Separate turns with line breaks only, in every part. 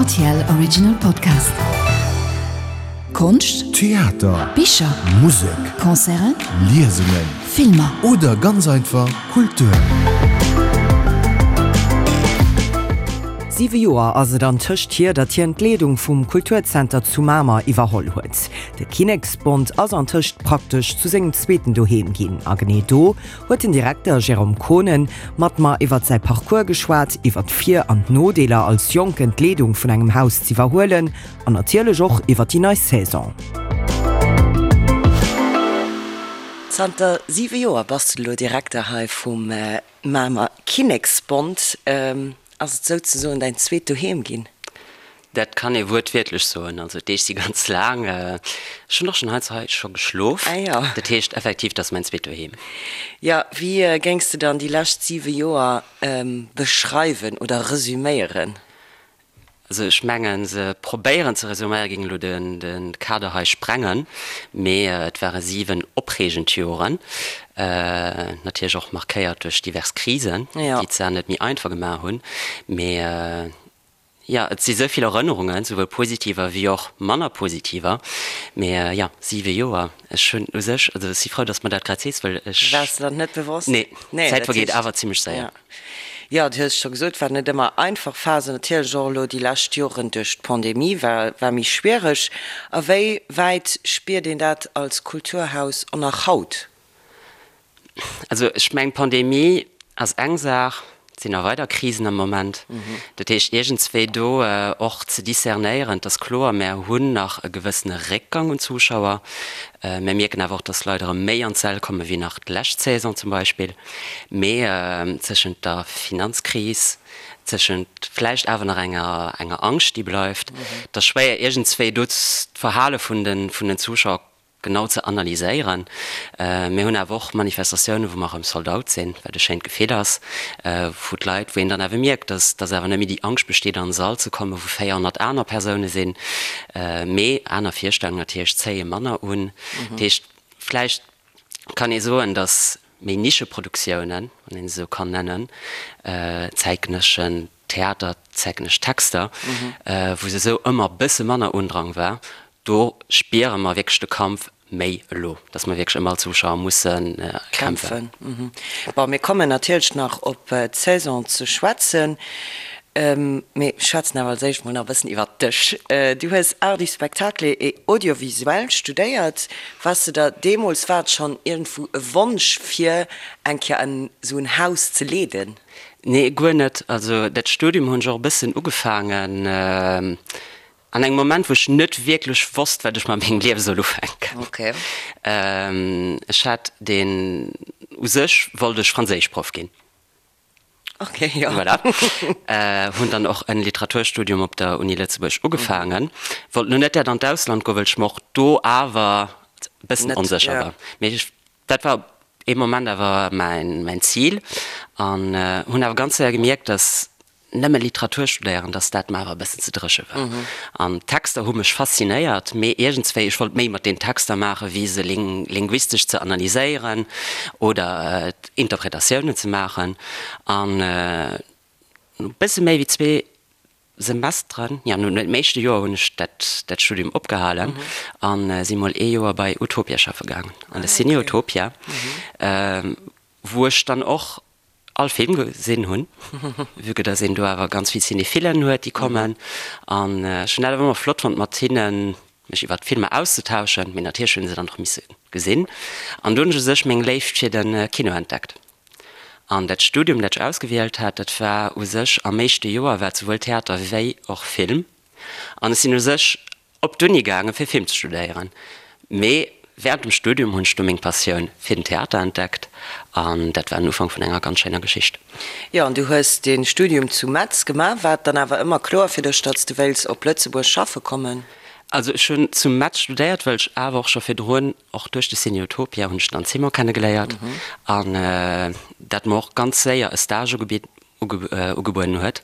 Rtl Original Podcast. Konscht,
Theater,
Bicher,
Musek,
Concerten,
Liesungen
Filmer.
Oder ganz einfach Kultur.
Siwe Joer ass et antëscht hier, datt hien d'Leedung vum Kulturzenter zu Mamer iwwerholl huet. De Kinneksbond ass antëscht praktesch zu sengem zweeten Doheem ginn. A genee do huet den Direkter Jérôme Konen mat mer iwwert säi Parcours geschwat, iwwert d'Vir an d'Nodeeler als Jonken d'Leedung vun engem Haus z'iwwerhuelen an natierlech och iwwert déi nei Saison.
Zanter 7 Joer bass de elo Direkter hei vum Mamer Kinneksbond. Ass et souzesoen däin zweet Doheem ginn?
Dat kann ee wuertwiertlech soen. Also d'Deeg si ganz laang. Ech hunn och schonn heiansdo hei scho geschlof.
Ah jo.
Dat heescht effektiv, dat ass mäin zweet Doheem.
Jo, wéi géings de dann déi lescht 7 Joer beschreiwen oder resüméieren?
Also ech mengen, se probéieren ze resuméieren, géing elo de Kader hei sprengen, mee et ware 7 opreegend Joren, natierlech och markéiert duerch divers Krisen, déi d'Saach net méi einfach gemaach hunn. Mee jo, et si sou vill Erënnerungen, souwuel positiver wéi och manner positiver. Mee jo, 7 Joer, ech hunn u sech, also ech si frou, datt s de mer dat grad sees, well ech.
Waars de der net bewosst?
Nee, d'Zäit vergeet awer zimmlech séier.
Jo, du hues et scho gesot, war net ëmmer einfach Phasen. Natierlech och elo déi lescht Joren duerch d'Pandemie war war méi schwiereg. A wéi wäit spiert een dat als Kulturhaus och nach haut?
Also ech mengen, d'Pandemie ass eng Saach, et sinn nach weider Krisen am Moment. Dat heescht, iergendswéi do och ze discernéieren, et ass kloer, mär hunn nach e gewëssene Réckgang un Zuschauer. Mär mierken awer och, datt Leit erëm méi an d'Säll komme wéi nach d'lescht Saison zum Beispill. Mee tëschent der Finanzkris, tëschent vläicht awer nach enger enger Angscht, déi bleift, et ass schwéier iergendswéi do d'Verhale vun de vun den Zuschauer genau ze analyséieren. Mir hunn awer och Manifestatiounen, wou mer erëm sold out sinn, wat e schéint Gefill ass, wou d'Leit, wou een dann awer mierkt, dass dass awer net méi déi Angscht besteet an e Sall ze kommen, wou 400 aner Persoune sinn. Mee aner Virstellungen natierlech zéie manner un. Dat heescht, vläicht kann ee soen, datt méi Nischeproduktiounen, wann een se esou kann nennen, zäitgenësseschen Theater, zäitgenëssesch Texter, wou se esou ëmmer e bësse manner Undrang war, do spiere mer wierklech de Kampf méi elo, datt mer wierklech ëm all Zuschauer musse kämpfen.
Bon, mir kommen natierlech nach op d'Saison ze schwätzen. Mee schwätzen awer als éischt mol nach e bëssen iwwert dech. Du hues Arts du spectacle et audiovisuel studéiert. Wars de der deemools, war et schonn iergendwou e Wonsch fir eng Kéier en esou en Haus ze leeden?
Nee, guer net. Also dat Studium hunn ech och e bëssen ugefaangen an engem Moment, wou ech net wierklech wosst, wat ech mat mengem Liewe soll ufänken. Ech hat deen, u sech wollt ech Franséischproff ginn.
Ok, jo.
Voilà. Hunn dann och en Literaturstudium op der Uni Lëtzebuerg ugefaangen. Wollt lo net dat an d'Ausland goen, well ech mer och do awer e bëssen onsécher war. Mee ech, dat war ee Moment awer mäin, mäin Zil. An hunn awer ganz séier gemierkt, dass nëmme Literatur studéieren, dass dat mer awer e bëssen ze dréche war. An d'Texter hu mech faszinéiert, mee iergendswéi, ech wollt méi mat den Texter maachen, wéi se linguistesch ze analyséieren oder Interpretatiounen ze maachen. An no e bësse méi wéi zwee Semesteren, jo, no dem éischte Joer hunn ech dat dat Studium opgehalen a si mol ee Joer bei Utopia schaffe gaangen, an de Ciné Utopia, wou ech dann och all Film gesinn hunn, vue que dass een do awer ganz vill Cinéphilen huet, déi kommen. An ech hunn dat awer ëmmer flott fonnt, mat hinnen mech iwwert d'Filmer auszetauschen, mee natierlech hunn se dann och misse gesinn. An do hunn ech u sech meng Léift fir de Kino entdeckt. An dat Studium, dat ech ausgewielt hat, dat war u sech am éischte Joer war et souwuel Theater wéi och Film. An ech sinn u sech op d'Uni gaangen, fir Film ze studéieren. Mee wärend dem Studium hunn ech du meng Passioun fir den Theater entdeckt an dat war den Ufank vun enger ganz schéiner Geschicht.
Jo, an du hues de Studium zu Metz gemaach. War et dann awer ëmmer kloer fir dech, datt s de wéils op Lëtzebuerg schaffe kommen?
Also ech hunn zu Metz studéiert, well ech awer och scho virdrun, och duerch de Ciné Utopia hunn ech dann Simon kennegeléiert an dat mer och ganz séier e Stage ugebitt. Ugebueden huet.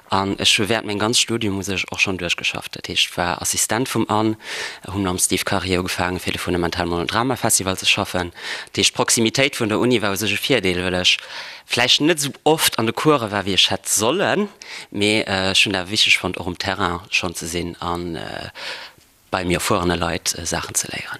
An ech hu während mengem ganze Studium u sech och schonn duerchgeschafft. Dat heescht, ech war Assistent vum Anne, hu mam Steve Karier ugefaangen, fir de Fundamental Monodrama Festival ze schaffen. Dat heescht, d'Proximitéit vun der Uni war u sech e Virdeel, well ech vläicht net esou oft an de Course war, wéi ech hätt sollen, mee ech hunn et awer wichteg fonnt, och um Terrain schonn ze sinn an bei méi erfuerene Leit Saachen ze léieren.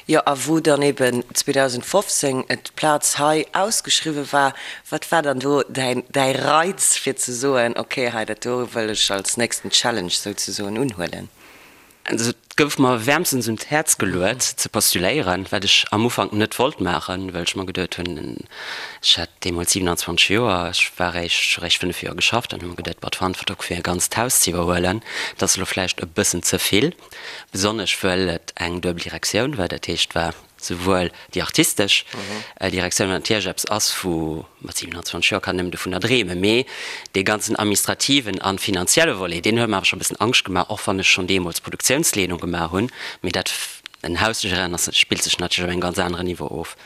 Jo, a wou dann eben 2015 d'Plaz hei ausgeschriwwe war, wat war dann do däin däi Reiz fir ze soen, ok, hei dat do wëll ech als nächsten Challenge souzesoen unhuelen?
Also et gouf mer wäermstens un d'Häerz geluet ze postuléieren, wat ech am Ufank net wollt maachen, well ech mer geduet hunn, ech hat deemools 27 Joer, ech war eréischt, ech hu eréischt 5 Joer geschafft an hu mer geduet, boah, d'Verantwortung fir e ganzt Haus ze iwwerhuelen, dat ass elo vläicht e bëssen ze vill, besonnesch wëll et eng duebel Direktioun war, dat heescht et war souwuel déi artistesch Direktioun, wat natierlech eppes ass, wou mat 27 Joer kann een nëmmen dovunner dreemen, mee dee ganzen administrativen a finanzielle Volet, deen huet mer awer scho e bëssen Angscht gemaach, och wann ech schonn deemools Produktiounsleedung gemaach hunn, mee dat, en Haus ze geréieren ass, spillt sech natierlech op engem ganz aneren Niveau of.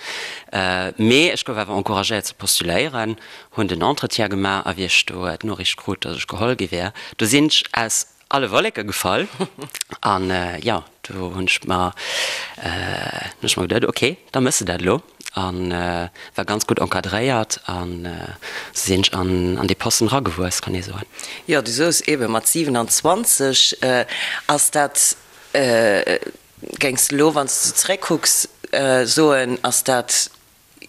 Mee ech gouf awer encouragéiert ze postuléieren, hunn den Entretien gemaach a wéi ech do d'Noriicht krut, datt ech geholl gi wär, do sinn ech aus alle Wolleke gefall an jo, do hunn ech mer hunn ech mer geduet, ok, da mëss de dat elo an war ganz gutt encadréiert an sou sinn ech an an dee Posten eragewuess, kann ee soen.
Jo, du soos eebe mat 27, ass dat, géings de elo, wann s de zeréckkucks, soen, ass dat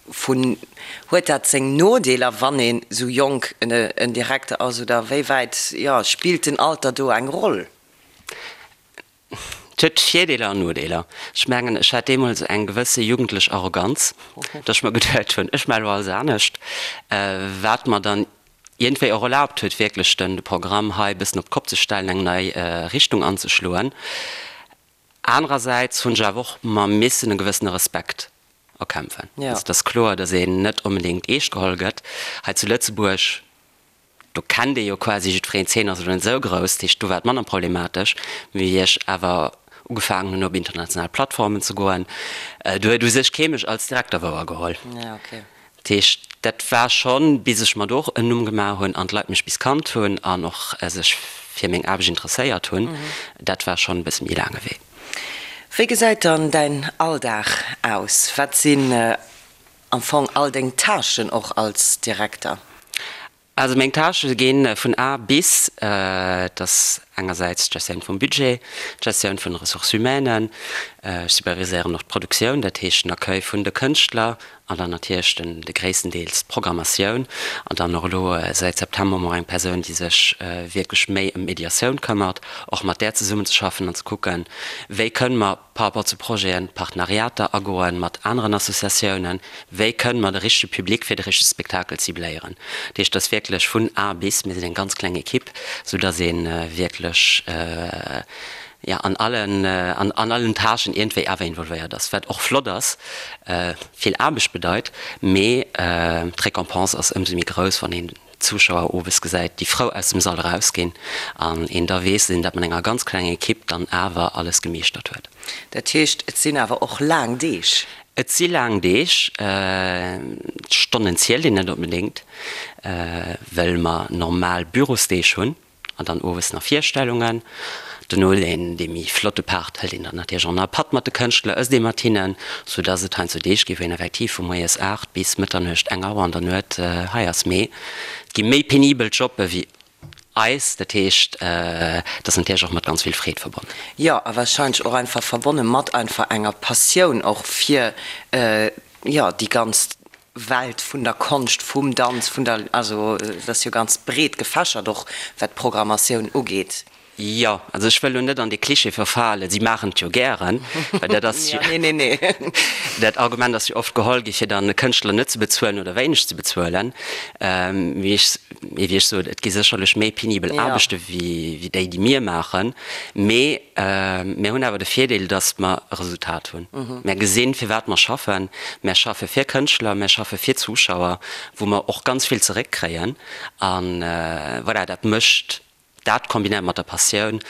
Vun, huet dat seng Nodeeler, wann een esou jonk en Direkter ass, oder wéi wäit, jo, spillt den Alter do eng Roll?
Et huet Virdeeler an Nodeeler. Ech mengen, ech hat deemools eng gewësse jugendlech Arroganz, datt ech mer geduet hunn, ech maache elo alles anescht, wat mer dann iergendwéi och erlaabt huet, wierklech de Programm hei e bëssen op d'Kopp ze stellen, eng nei Richtung anzeschloen. Anerersäits hunn ech awer och mer missen e gewëssene Respekt erkämpfen. Also et ass kloer, datt een net onbedéngt eescht geholl gëtt. Hei zu Lëtzebuerg, do kennt ee jo quasi jiddwereen, d'Zeen ass elo net esou grouss, dat heescht do war et manner problematesch. Mee wéi ech awer ugefaangen hunn op international Plattformen ze goen, do huet u sech kee mech als Direkter wouergeholl. Dat heescht, dat war schonn, bis ech mer do och en Numm gemaach hunn an d'Leit mech bis kannt hunn an och sech fir meng Aarbecht interesséiert hunn, dat war schonn e bësse méi laange Wee.
Wéi gesäit dann däin Alldag aus? Wat sinn am Fong all deng Tâchen och als Direkter?
Also meng Tâchë gi vun A bis, et ass engersäits d'Gestioun vum Budget, d'Gestioun vun de Ressources humaines, ech superviséieren och d'Produktioun, dat heescht den Accueil vun de Kënschtler an dann natierlech den de gréisstendeels d'Programmatioun an dann och elo säit September hu mer eng Persoun, déi sech wierklech méi ëm d'Mediatioun këmmert, och mat där zesummenzeschaffen an ze kucken, wéi kënne mer par rapport zu Projeten, Partenariater agoen mat aneren Associatiounen, wéi kënnen mer de richtege Public fir de richtege Spektakel cibléieren. Dat heescht, et ass wierklech vun A bis, mir sinn eng ganz kleng Equipe, sou dass ee wierklech, jo, an allen, an allen Tâchen iergendwéi awer involvéiert ass, wat och flott ass, vill Aarbecht bedeit, mee d'Récompense ass ëmsou méi grouss, wann een Zuschauer owes gesäit, déi frou aus dem Sall erausginn an een da weess, dass een dat mat enger ganz klenger Ekipp dann awer alles gemeeschtert huet.
Dat heescht, et sinn awer och laang Deeg?
Et si laang Deeg. D'Stonnen zielt een net onbedéngt, well mer normal Bürosdeeg hunn. An dann owes nach Virstellungen. Dono deen dee méi flotte Part hëlt een dann natierlech och nach e Patt mat de Kënschtler, ësst ee mat hinnen, sou dass et heiansdo Deeg gi wou een effektiv vu moies 8 bis Mëtternuecht, eng Auer an der Nuet hei ass. Mee et gi méi penibel Jobbe wéi eis, dat heescht et ass natierlech och mat ganz vill Freed verbonnen.
Jo, a warscheinlech och einfach verbonne mat einfach enger Passioun och fir, jo, déi ganz Welt vun der Konscht, vum Danz, vun der, also et ass jo ganz breet gefächert och wat d'Programmatioun ugeet.
Jo, also ech wëll elo net an dee Cliché verfalen, si maachen et jo gären, well dat ass jo,
Nee, nee, nee.
dat Argument ass jo oft geholl gi fir dann e Kënschtler net ze bezuelen oder wéineg ze bezuelen. Mee ech, mee wéi ech sot, et gi sécherlech méi penibel Aarbechte wéi déi, déi mir maachen, mee Mir hunn awer de Virdeel, datt mer e Resultat hunn. Mär gesinn, fir wat mer schaffen. Mär schaffe fir Kënschtler, mär schaffe fir Zuschauer, wou mer och ganz vill zeréckkréien. A voilà, dat mécht, dat kombinéiert mat der Passioun,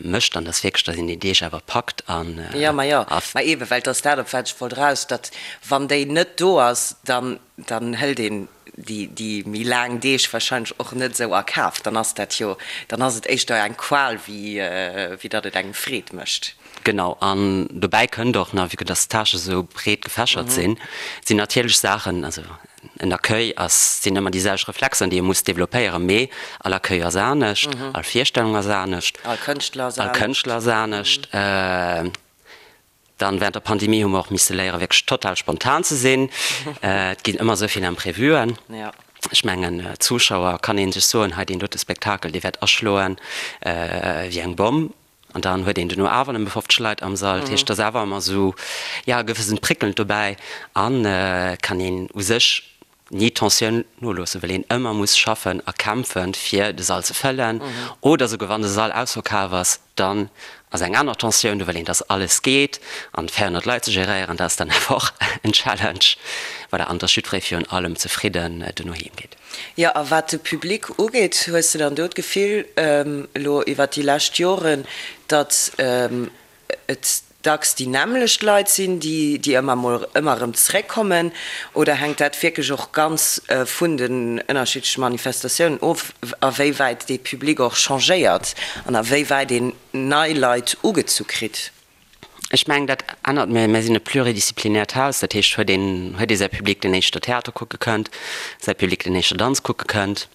mécht dann, datt wierklech, datt een déi Deeg awer packt an.
Jo, ma jo, ma eeben, well et ass dat, op wat ech wollt eraus, datt wann déi net do ass, dann, dann hëlt een. déi méi laang Deeg warscheinlech och net esou a Kaf. Dann ass dat jo, dann ass et éischter eng Qual wéi wéi datt et engem Freed mécht.
Genau, an dobäi kënnt och nach, vue que dass d'Tâchen esou breet gefächert sinn, sinn natierlech Saachen, also en Accueil ass, sinn ëmmer déi selwecht Reflexen, déi ee muss développéieren, mee all Accueil ass anescht, all Virstellung ass anescht,
All Kënschtler ass
all Kënschtler ass anescht. Dann während der Pandemie hu mer och misse léieren, wierklech total spontan ze sinn. Et ginn ëmmer esou vill Imprevuen. Ech mengen, Zuschauer kann ee sech soen, hei deen dote Spektakel, dee wäert aschloen wéi eng Bomm. An dann huet een duerno awer nëmme 50 Leit am Sall. Dat heescht, et ass awer ëmmer esou, jo, e gewëssent Prickelnd dobäi an et kann een u sech ni d'Tensioun noloossen, well een ëmmer muss schaffen a kämpfen, fir de Sall ze fëllen. Oder souguer wann de Sall ausverkaf ass, dann ass eng aner Tensioun do, well een, dass alles geet an 400 Leit ze geréieren, dat ass dann awer och en Challenge. Voilà, an dass jiddweree virun allem zefridden duerno heem geet.
Jo, a wat de Public ugeet, hues de dann do d'Gefill, elo iwwert déi lescht Joren, datt et dacks déi nämmlecht Leit sinn, déi déi ëmmer mol ëmmer erëm zeréckkommen, oder hänkt dat wierklech och ganz vun den ënnerschiddleche Manifestatiounen of, a wéi wäit dee Public och changéiert an a wéi wäit een nei Leit ugezu kritt?
Ech mengen, dat ännert. Mir mir sinn e pluridisziplinäert Haus, dat heescht, huet een huet ee säi Public, deen éischter Theater kucke kënnt, säi Public, deen éischter Danz kucke kënnt.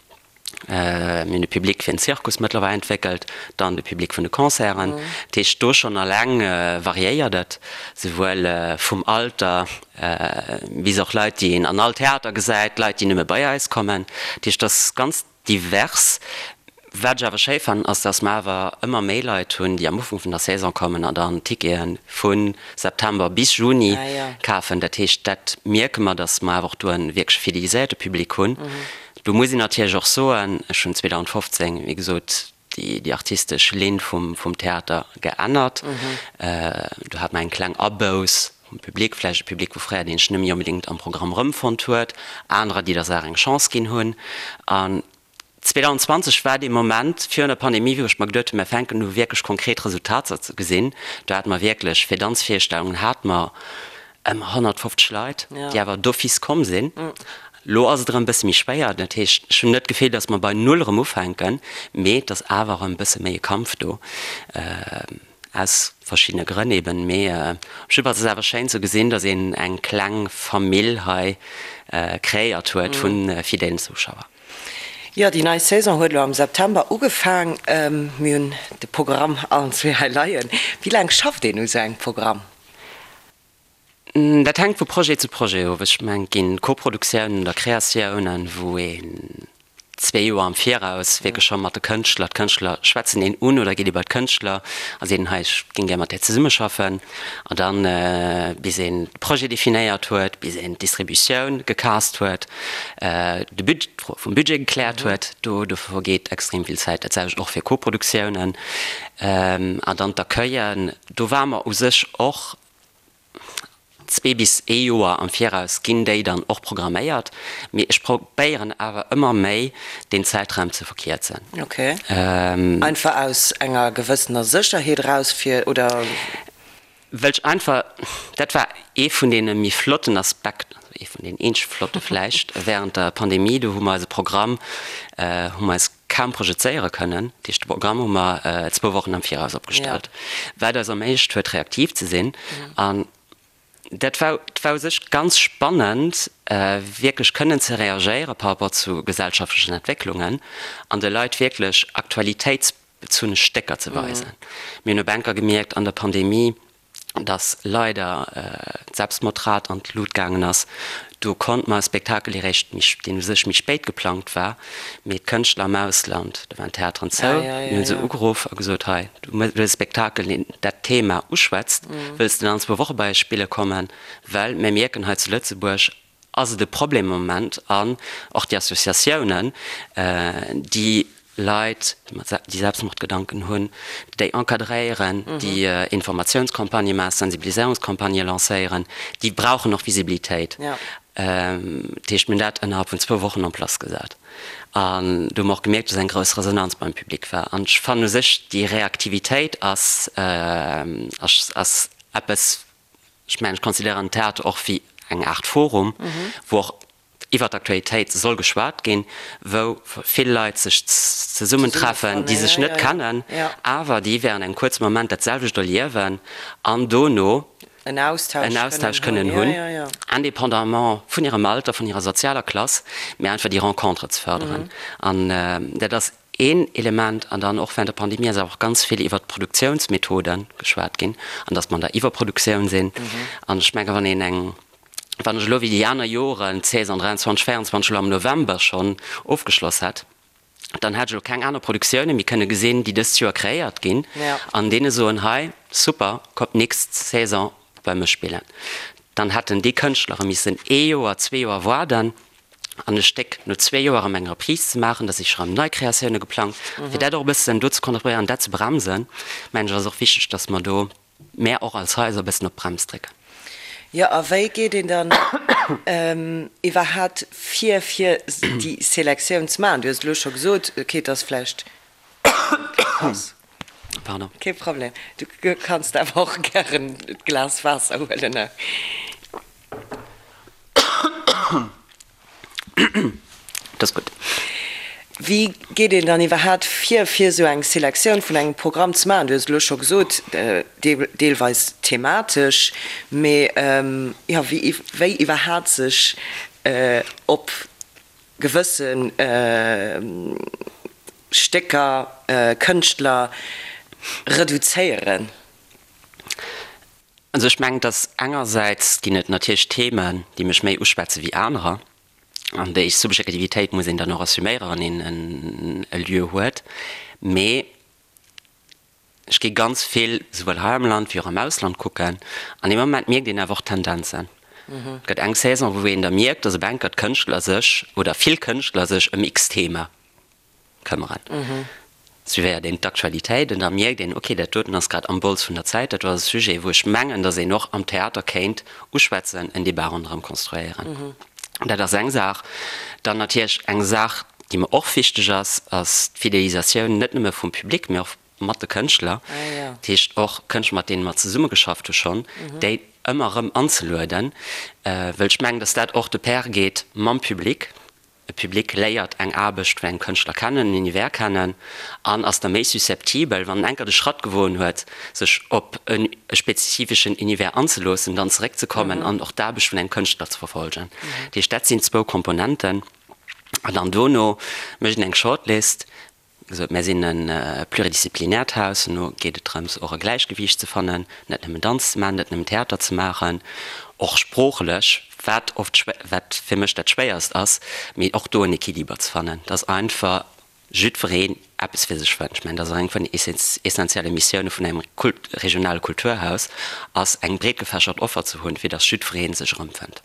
Mir hunn de Public fir den Zirkus mëttlerweil entwéckelt, dann de Public vun de Concerten. Dat heescht, do schonn alleng variéiert et, souwuel vum Alter bis och Leit, déi een an all Theater gesäit, Leit, déi nëmme bei eis kommen. Dat heescht, et ass ganz divers. Wat ech awer schéi fannen, ass, dass mer awer ëmmer méi Leit hunn, déi am Ufank vun der Saison kommen an dann Tickete vu September bis Juni kafen. Dat heescht, dat mierke mer, dass mer awer och do e wierklech fideliséierte Public hunn. Do muss een natierlech och soen, ech hunn 2015, wéi gesot, déi artistesch Linn vum Theater geännert. Do hat mer eng kleng Abouss vum Public, vläicht e Public vu fréier, deen sech net méi onbedéngt am Programm erëmfonnt huet, anerer, déi der Saach eng Chance ginn hunn. An 2020 war dee Moment virun der Pandemie, wou ech mer geduet hunn, mer fänken u wierklech konkret Resultater ze gesinn. Do hate mer wierklech, fir Danzvirstellungen hate mer ëmmer 150 Leit, déi awer d'office komm sinn. Lo ass et erëm e bësse méi schwéier. Dat heescht, ech hunn net d'Gefill, datt mer bei Null erëm ufänken, mee et ass awer erëm e bësse méi e Kampf do, aus verschiddene Grënn eben. Mee op jidde Fall ass et awer schéin ze gesinn, datt een eng kleng Famill hei kreéiert huet vu fidelen Zuschauer.
Jo, déi nei Saison huet elo am September ugefaang. Mir hunn de Programm allen zwee hei leien. Wéi laang schafft een u sou engem Programm?
Dat hänkt vu Projet zu Projet of. Ech mengen, et ginn Koproduktiounen oder Kreatiounen, wou een zwee Joer am Viraus wierklech scho mat de Kënschtler, d'Kënschtler schwätzen een un oder geet ee bei d'Kënschtler a seet, hei ech géing gär mat där zesummeschaffen. An dann, bis een de Projet definéiert huet, bis een d'Distributioun gecast huet, de Bud, d'Fro vum Budget gekläert huet, do do vergeet extrem vill Zäit. Dat selwecht och fir Koproduktiounen. An dann d'Accueillen, do ware mer u sech och zwee bis ee Joer am Viraus ginn déi dann och programméiert, mee ech probéieren awer ëmmer méi deen Zäitraum ze verkierzen.
Ok. Einfach aus enger gewëssener Sécherheet eraus fir, oder?
Well ech einfach, dat war ee vun deene méi flotten Aspekten, also ee vun deenen eenzege flotte vläicht, während der Pandemie, do hu mer eise Programm, hu mer eis kaum projezéiere kënnen. Dat heescht, de Programm hu mer zwou Wochen am Viraus opgestallt, wat eis erméiglecht huet, reaktiv ze sinn. An dat war, war u sech ganz spannend, wierklech kënnen ze reagéiere par rapport zu gesellschaftlechen Entwécklungen an de Leit wierklech aktualitéitsbezunne Stécker ze weisen. Mir hunn op enker gemierkt an der Pandemie, dass leider d'Selbstmordrat an d'Lut gaangen ass. Do konnt mer e Spektakel eréischt méi, deen u sech méi spéit geplangt war, mee d'Kënschtler am Ausland, do waren d'Theateren zou, mir hu se ugeruff a gesot, hei, du hues e Spektakel, deen dat Thema uschwätzt, wëlls de dann an zwou Woche bei eis spille kommen, well mir mierken hei zu Lëtzebuerg ass et e Problem am Moment an och déi Associatiounen, déi Leit, déi Selbstmordgedanken hunn, déi encadréieren, déi Informatiounscampagnë maachen, Sensibiliséierungscampagnë lancéieren, déi brauchen och Visibilitéit. Dat heescht, mir hunn dat ënnerhalb vun zwou Wochen en place gesat. An do hu mer och gemierkt, dass eng grouss Resonanz beim Public war. An ech fannen u sech, déi Reaktivitéit ass ass eppes, ech mengen, ech considéieren den Theater och wéi eng Aart Forum, wou och. Iwwer d'Aktualitéit soll geschwat ginn, wou vill Leit sech zesummentreffen, déi sech net kennen, awer déi während engem kuerze Moment dat selwecht erliewen an dono en Austausch kënnen hunn, indépendamment vun hirem Alter, vun hirer sozialer Klass, mä einfach déi Rencontre ze fërderen. An dat ass een Element. An dann och während der Pandemie ass awer och ganz vill iwwert d'Produktiounsmethode geschwat ginn an datt mer an der Iwwerproduktioun sinn. An ech menge wann een eng Wann ech elo wéi déi aner Joren d'Saison 23, 24 elo am November schonn ofgeschloss hätt, dann hätt ech elo keng aner Produktioune méi kënne gesinn, déi dëst Joer kreéiert ginn, an deene soen, hei, super, kommt d'nächst Saison bei mech spillen. Dann hätten déi Kënschtlere missen ee Joer, zwee Joer waarden an e Stéck no zwee Joer erëm eng Reprise ze maachen, da si scho rëm nei Kreatioune geplangt. Fir dat och e bëssen do ze kontrolléieren, dat ze bremsen, mengen ech, ass och wichteg, datt mer do Mär och als Haiser e bëssen op d'Brems drécken.
Jo, a wéi geet een dann iwwerhaapt vir, fir déi Selektioun ze maachen? Du hues et elo scho gesot, okay, et ass vläicht,
Pardon.
Kee Problem. Du kanns awer och gären d'Glas Waasser huelen.
Dat ass gutt.
Wéi geet een dann iwwerhaapt vir, fir esou eng Selektioun vun engem Programm ze maachen? Du hues et elo scho gesot, deelweis thematesch, mee jo, wéi wéi iwwerhaapt sech op gewësse Stécker, Kënschtler reduzéieren?
Also ech mengen, dass engersäits ginn et natierlech Themen, déi mech méi uschwätze wéi anerer, an déi Subjektivitéit muss een dann och assuméiere wann een e Lieu huet. Mee ech gi ganz vill souwuel hei am Land wéi och am Ausland kucken, an dee Moment mierkt een awer och Tendenzen. Et gëtt eng Saison, wou een da mierkt, dass op enker d'Kënschtler sech oder vill Kënschtler sech ëm X-Thema këmmeren. Suivéiert een d'Aktualitéit an da mierkt een, ok, dat doten ass grad am Bols vun der Zäit, dat do ass e Sujet, wou ech mengen, datt een och am Theater kéint uschwätzen, en Debat ronderëm konstruéieren. Dat ass eng Saach. Dann natierlech eng Saach, déi mer och wichteg ass, ass d'Fidelisatioun net nëmme vum Public, mee och mat de Kënschtler. Dat heescht och Kënschtler, mat deene mer zesummegeschafft hu schonn, déi ëmmer erëm anzelueden, wëll ech mengen, datt dat och de pair geet mam Public. E Public léiert eng Aarbecht vun engem Kënschtler kennen, en Univers kennen an ass da méi susceptibel, wann en enker de Schratt gewoen huet, sech op e spezifeschen Univers anzeloossen, dann zeréckzekommen an och d'Aarbecht vun engem Kënschtler ze verfolgen. Dat heescht, dat sinn zwou Komponenten. An dann dono mécht een eng Shortlist. Gesot, mär sinn e pluridisziplinäert Haus, no geet et drëms och e Gläichgewiicht ze fannen, net nëmmen Danz ze maachen, net nëmmen Theater ze maachen, och sproochlech, wat oft, wat fir mech dat Schwéierst ass, mee och do en Equiliber ze fannen, dass einfach jiddwereen eppes fir sech fënnt. Ech mengen, dat ass och eng vun den essentielle Missioune vun engem regionale Kulturhaus, ass eng breetgefächert Offer ze hunn, fir dass jiddweree sech erëmfënnt.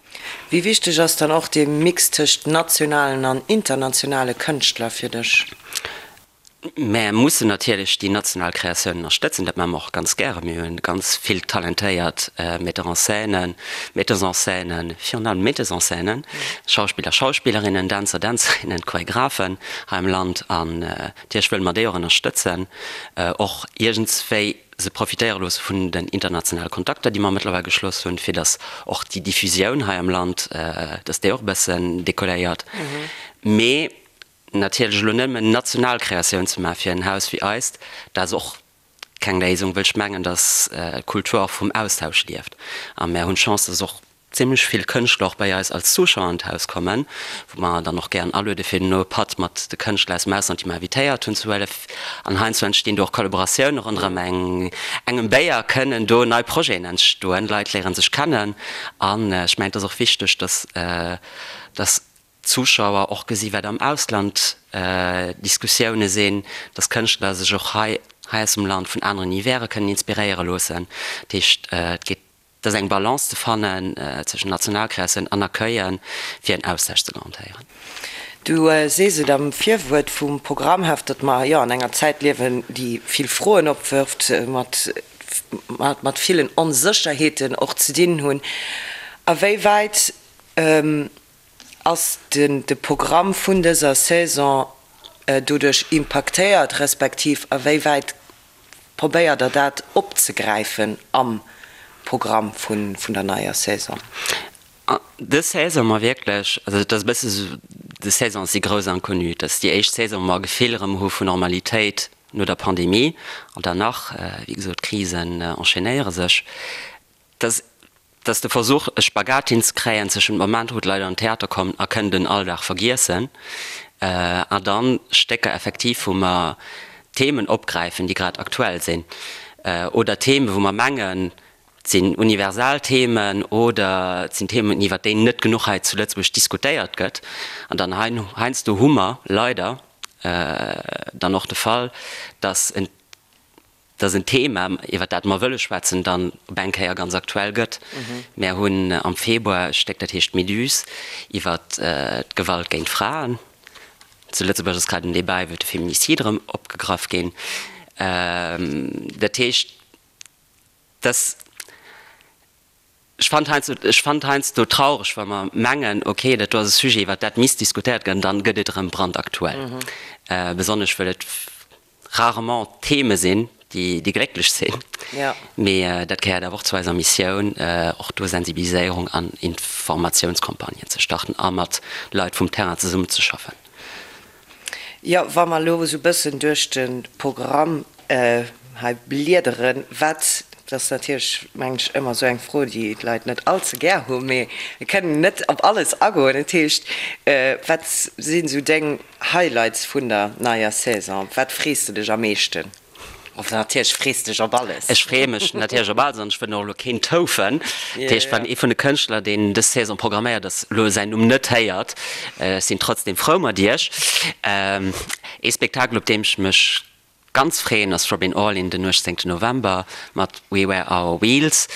Wéi wichteg ass dann och dee Mix tëscht nationalen an internationale Kënschtler fir dech?
Mär mussen natierlech déi national Kreatiounen ënnerstëtzen, dat maache mer och ganz gären. Mir hunn ganz vill talentéiert Metteurs en scène, Metteuses en scène, virun allem Metteuses en scène, Schauspiller, Schauspillerinnen, Dänzer, Dänzerinnen, Choregraphen hei am Land an natierlech wëlle mer déi och ënnerstëtzen, och iergendswéi se profitéiere loosse vun den internationale Kontakter, déi mer mëttlerweil geschloss hunn, fir datt och déi Diffusioun hei am Land, datt déi och e bëssen decolléiert. Mee natierlech elo nëmmen national Kreatioun ze maache fir en Haus wéi eist, dat ass och keng Léisung, wëll ech mengen, datt d'Kultur och vum Austausch lieft. A mär hunn d'Chance, datt och zimmlech vill Kënschtler och bei eis als Zuschauer an d'Haus kommen, wou mer dann och gären aluede fir duerno e Patt mat de Kënschtler aus dem Ausland, déi mer invitéiert hunn, ze huelen. An heiansdo entstinn do och Kollaboratioune ronderëm eng engem Béier, kënnen do nei Projeten entstoen, Leit léiere sech kennen. An ech mengen, et ass och wichteg, dass dass d'Zuschauer och gesi wat am Ausland Diskussioune sinn, dass Kënschtler sech och hei hei aus dem Land vun aneren Univere kënnen inspiréiere loossen. Dat heescht, et geet Et ass eng Balance ze fannen zwëschen Nationalkreatioun an Accueillen, fir en Austausch ze garantéieren.
Du sees et am Virwuert vum Programmheft, datt mer jo an enger Zäit liewen, déi vill Froen opwërft, mat mat villen Onsécherheeten och ze dinn hunn. A wéi wäit ass de Programm vun dëser Saison doduerch impaktéiert, respektiv a wéi wäit Probéiert der dat opzegräifen am Programm vun der neier Saison?
Dës Saison mer wierklech, also et ass e bësse sou, dës Saison ass déi grouss Inconnue. Et ass déi éischt Saison, wou mer e Gefill erëm hu vun Normalitéit no der Pandemie. An dann nach, wéi gesot, d'Krisen enchaînéiere sech. Et ass, et ass de Versuch, e Spagat hinzekréien zwëschent dem Moment, wou d'Leit an den Theater kommen a kënnen den Alldag vergiessen, an dann Stécker effektiv, wou mer Themen opgräifen, déi grad aktuell sinn, oder Themen, wou mer mengen, Et sinn universal Themen oder et sinn Themen, iwwert déi net genuch hei zu Lëtzebuerg diskutéiert gëtt. An dann heiansdo hu mer leider dann och de Fall, dass en, dass en Thema, iwwert dat mer wëlle schwätzen, dann op eng Kéier ganz aktuell gëtt. Mär hunn am Februar e Stéck, dat heescht Méduse, iwwert d'Gewalt géint Fraen. Zu Lëtzebuerg ass grad en Débat iwwert de Féminicide erëm opgegraff ginn. Dat heescht, Dass, ech fannen heiansdo, ech fannen et heiansdo traureg, wa mer mengen, okay, dat do ass e Sujet, iwwert dat misst diskutéiert gënn, dann gëtt et erëm brandaktuell. Besonnesch wëll et rarement Theme sinn, déi, déi glécklech sinn. Mee dat gehéiert awer och zu eiser Missioun, och do Sensibiliséierung an Informatiounscampagnen ze starten a mat Leit vum Terrain zesummenzeschaffen.
Jo, wa mer elo esou e bëssen duerch de Programm hei bliederen, wat, dat ass natierlech, mengen ech, ëmmer esou eng Fro, déi d'Leit net all ze gär hunn, mee mir kënnen net op alles agoen. Dat heescht, wat sinn esou deng Highlights vun der neier Saison? Op wat frees de dech am meeschten? Enfin, natierlech frees de dech op alles.
Ech freeë mech natierlech op alles an ech wëll och elo keen toufen. Dat heescht, wann ee vun de Kënschtler, deen dës Saison programméiert ass, elo säin Numm net héiert, ech sinn trotzdem frou mat iech. Ee Spektakel, op deem ech mech ganz freeën, ass d'Robyn Orlin den 18 November mat We Wear Our Wheels.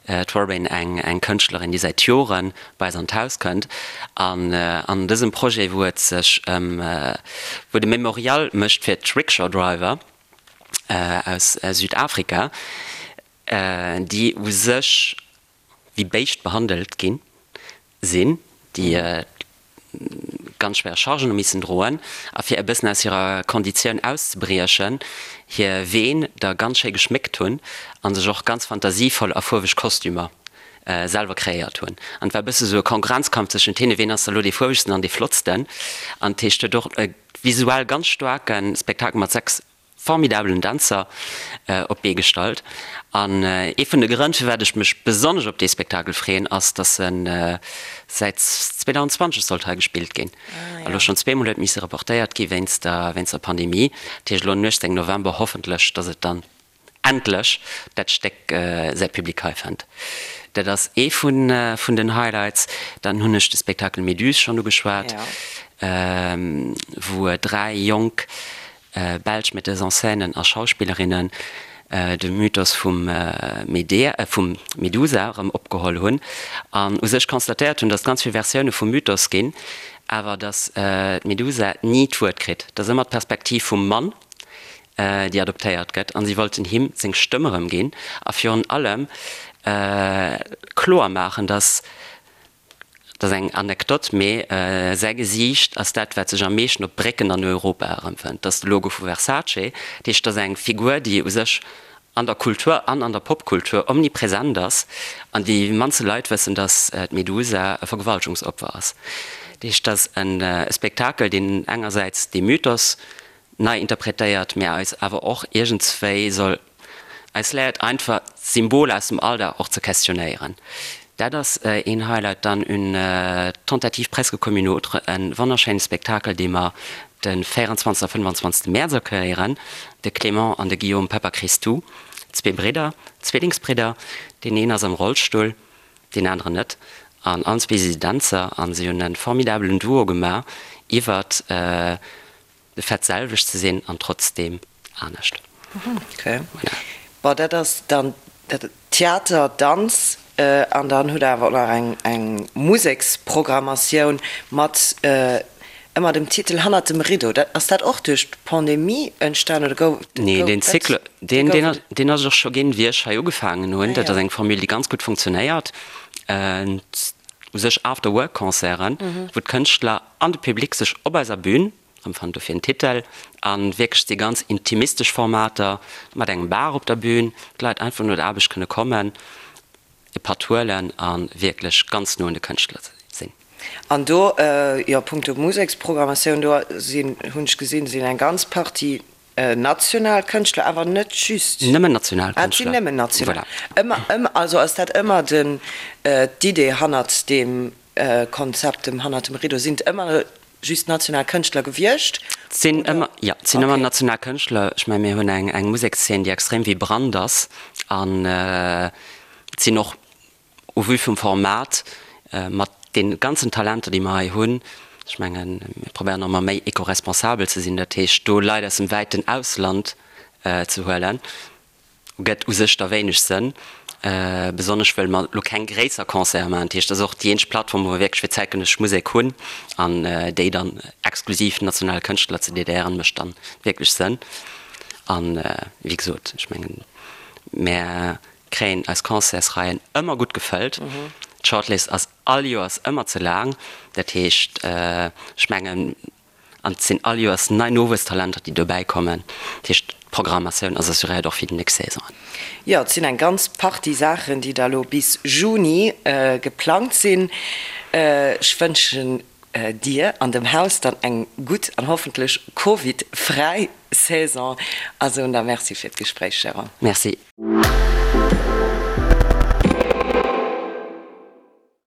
D'Robyn, eng eng Kënschtlerin, déi säit Jore bei eis an d'Haus kënnt an an dësem Projet, wou et sech ëm, wou et e Memorial mécht fir d'Rickshaw Driver, aus Südafrika, déi u sech wéi Béischt behandelt gi sinn, déi ganz schwéier Chargen hu missen droen a fir e bëssen aus hirer Konditioun auszebriechen, hir Ween da ganz schéi geschméckt hunn a sech och ganz fantasievoll a fuerweg Kostümer selwer kreéiert hunn. An et war e bësse sou e Konkurrenzkampf zwëschent hinne, ween ass da lo dee fuerwegsten an dee flottsten. An dat heescht, huet och e visuell ganz staarke Spektakel mat 6 formidabelen Dänzer op d'Bee gestallt. An ee vun de Grënn, firwat ech mech besonnesch op dee Spektakel freeën, ass, datt e säit 2020 sollt hei gespillt ginn a lo schonn zweemol huet misse reportéiert gi wéinst der wéinst der Pandemie. Dat heescht elo den 18 November hoffentlech, datt et dann endlech dat Stéck säi Public hei fënnt. Dat ass ee vun vun den Highlights. Dann hunn ech de Spektakel Méduse schonn ugeschwat, wou 3 jonk belsch Metteuses en scènen a Schauspillerinnen de Mythos vum Medea, vum Medusa erëm opgeholl hunn an u sech constatéiert hunn, datt et ganz vill Versioune vum Mythos ginn, awer datt d'Medusa ni d'Wuert kritt. Et ass ëmmer d'Perspektiv vum Mann, déi adoptéiert gëtt, an si wollten him seng Stëmm erëm ginn a virun allem kloer maachen, datt, dat ass eng Anekdot, mee säi Gesiicht ass dat, wat sech am meeschten op Brécken an Europa erëmfënnt, dat ass de Logo vu Versace. Dat heescht, dat ass eng Figur, déi u sech an der Kultur an an der Popkultur omnipresent ass, an déi mannste Leit wëssen, datt d'Medusa e Vergewaltegungsopfer ass. Dat heescht, dat ass e Spektakel, deen engersäits dee Mythos nei interpretéiert, mä eis awer och iergendswéi soll eis léiert einfach Symboler aus dem Alldag och ze questionnéieren. Dat ass een Highlight. Dann Une tentative presque comme une autre, e wonnerschéine Spektakel, dee mer de 24 a 25 Mäerz accueillieren, de Clément an de Guillaume Papachristou, zwee Bridder, Zwillingsbridder, deen een ass am Rollstull, deen aneren net, an allen zwee si se Dänzer a si hunn e formidabelen Duo gemaach iwwert De Fait selwecht ze sinn an trotzdeem anescht.
Ok. Bon, dat ass dann Theater, Danz an dann hutt Der awer och nach eng eng Museksprogrammatioun mat ëmmer dem Titel Hannert dem Rideau. Dat, ass dat och duerch d'Pandemie entstan oder gouf
Nee, deen Cycle, deen, deen ass, deen ass et och scho ginn, wéi ech hei ugefaangen hunn. Dat ass eng Formule, déi ganz gutt funktionéiert. U sech After-Work-Concerten, wou d'Kënschtler an de Public sech op eiser Bühn erëmfannen, dofir den Titel, a wierklech si ganz intimistesch Formater mat engem Bar op der Bühn, d'Leit einfach no der Aarbecht kënne kommen. e Patt huelen a wierklech ganz no un de Kënschtler sinn.
An do, jo, punkto Museksprogrammatioun, do sinn, hunn ech gesinn, sinn eng ganz Partie national Kënschtler, awer net just.
Nëmmen national
Kënschtler. Ah, et sinn nëmmen national. Voilà. Ëmmer, ëmmer, also ass dat ëmmer den, d'Idee hannert deem Konzept, dem hannert dem Rideau? Sinn et ëmmer just national Kënschtler gewiescht?
Et sinn ëmmer, jo, et sinn ëmmer national Kënschtler. Ech mengen, mir hunn eng, eng Musekszeen, déi extrem vibrant ass an et sinn och, au vu vum Format, mat de ganzen Talenter, déi mer hei hunn, ech mengen, mir probéieren och ëmmer méi eco-responsabel ze sinn, dat heescht do Leit aus dem wäiten Ausland ze huelen, gëtt u sech da wéineg Sënn, besonnesch wëll mer elo keng gréisser Concerte maachen. Dat heescht, dat ass och déi eenzeg Plattform, wou mer wierklech fir zäitgenëssesch Musek hunn an déi dann exklusiv nationale Kënschtler ze dediéieren, mécht dann wierklech Sënn. An wéi gesot, ech mengen, mär kréien eis Concertsreien ëmmer gutt gefëllt. D'Shortlist ass all Joers ëmmer ze laang. Dat heescht, ech mengen, an et sinn all Joers nei Nowuesstalenter, déi dobäi kommen. Dat heescht, d'Programmatioun ass assuréiert och fir déi nächst Saisonen.
Jo, et sinn eng ganz Partie Saachen, déi da lo bis Juni geplangt sinn. Ech wënschen dir an dem Haus dann eng gutt an hoffentlech Covid-fräi Saison a soen da Merci fir d'Gespréich, Jérôme.
Merci.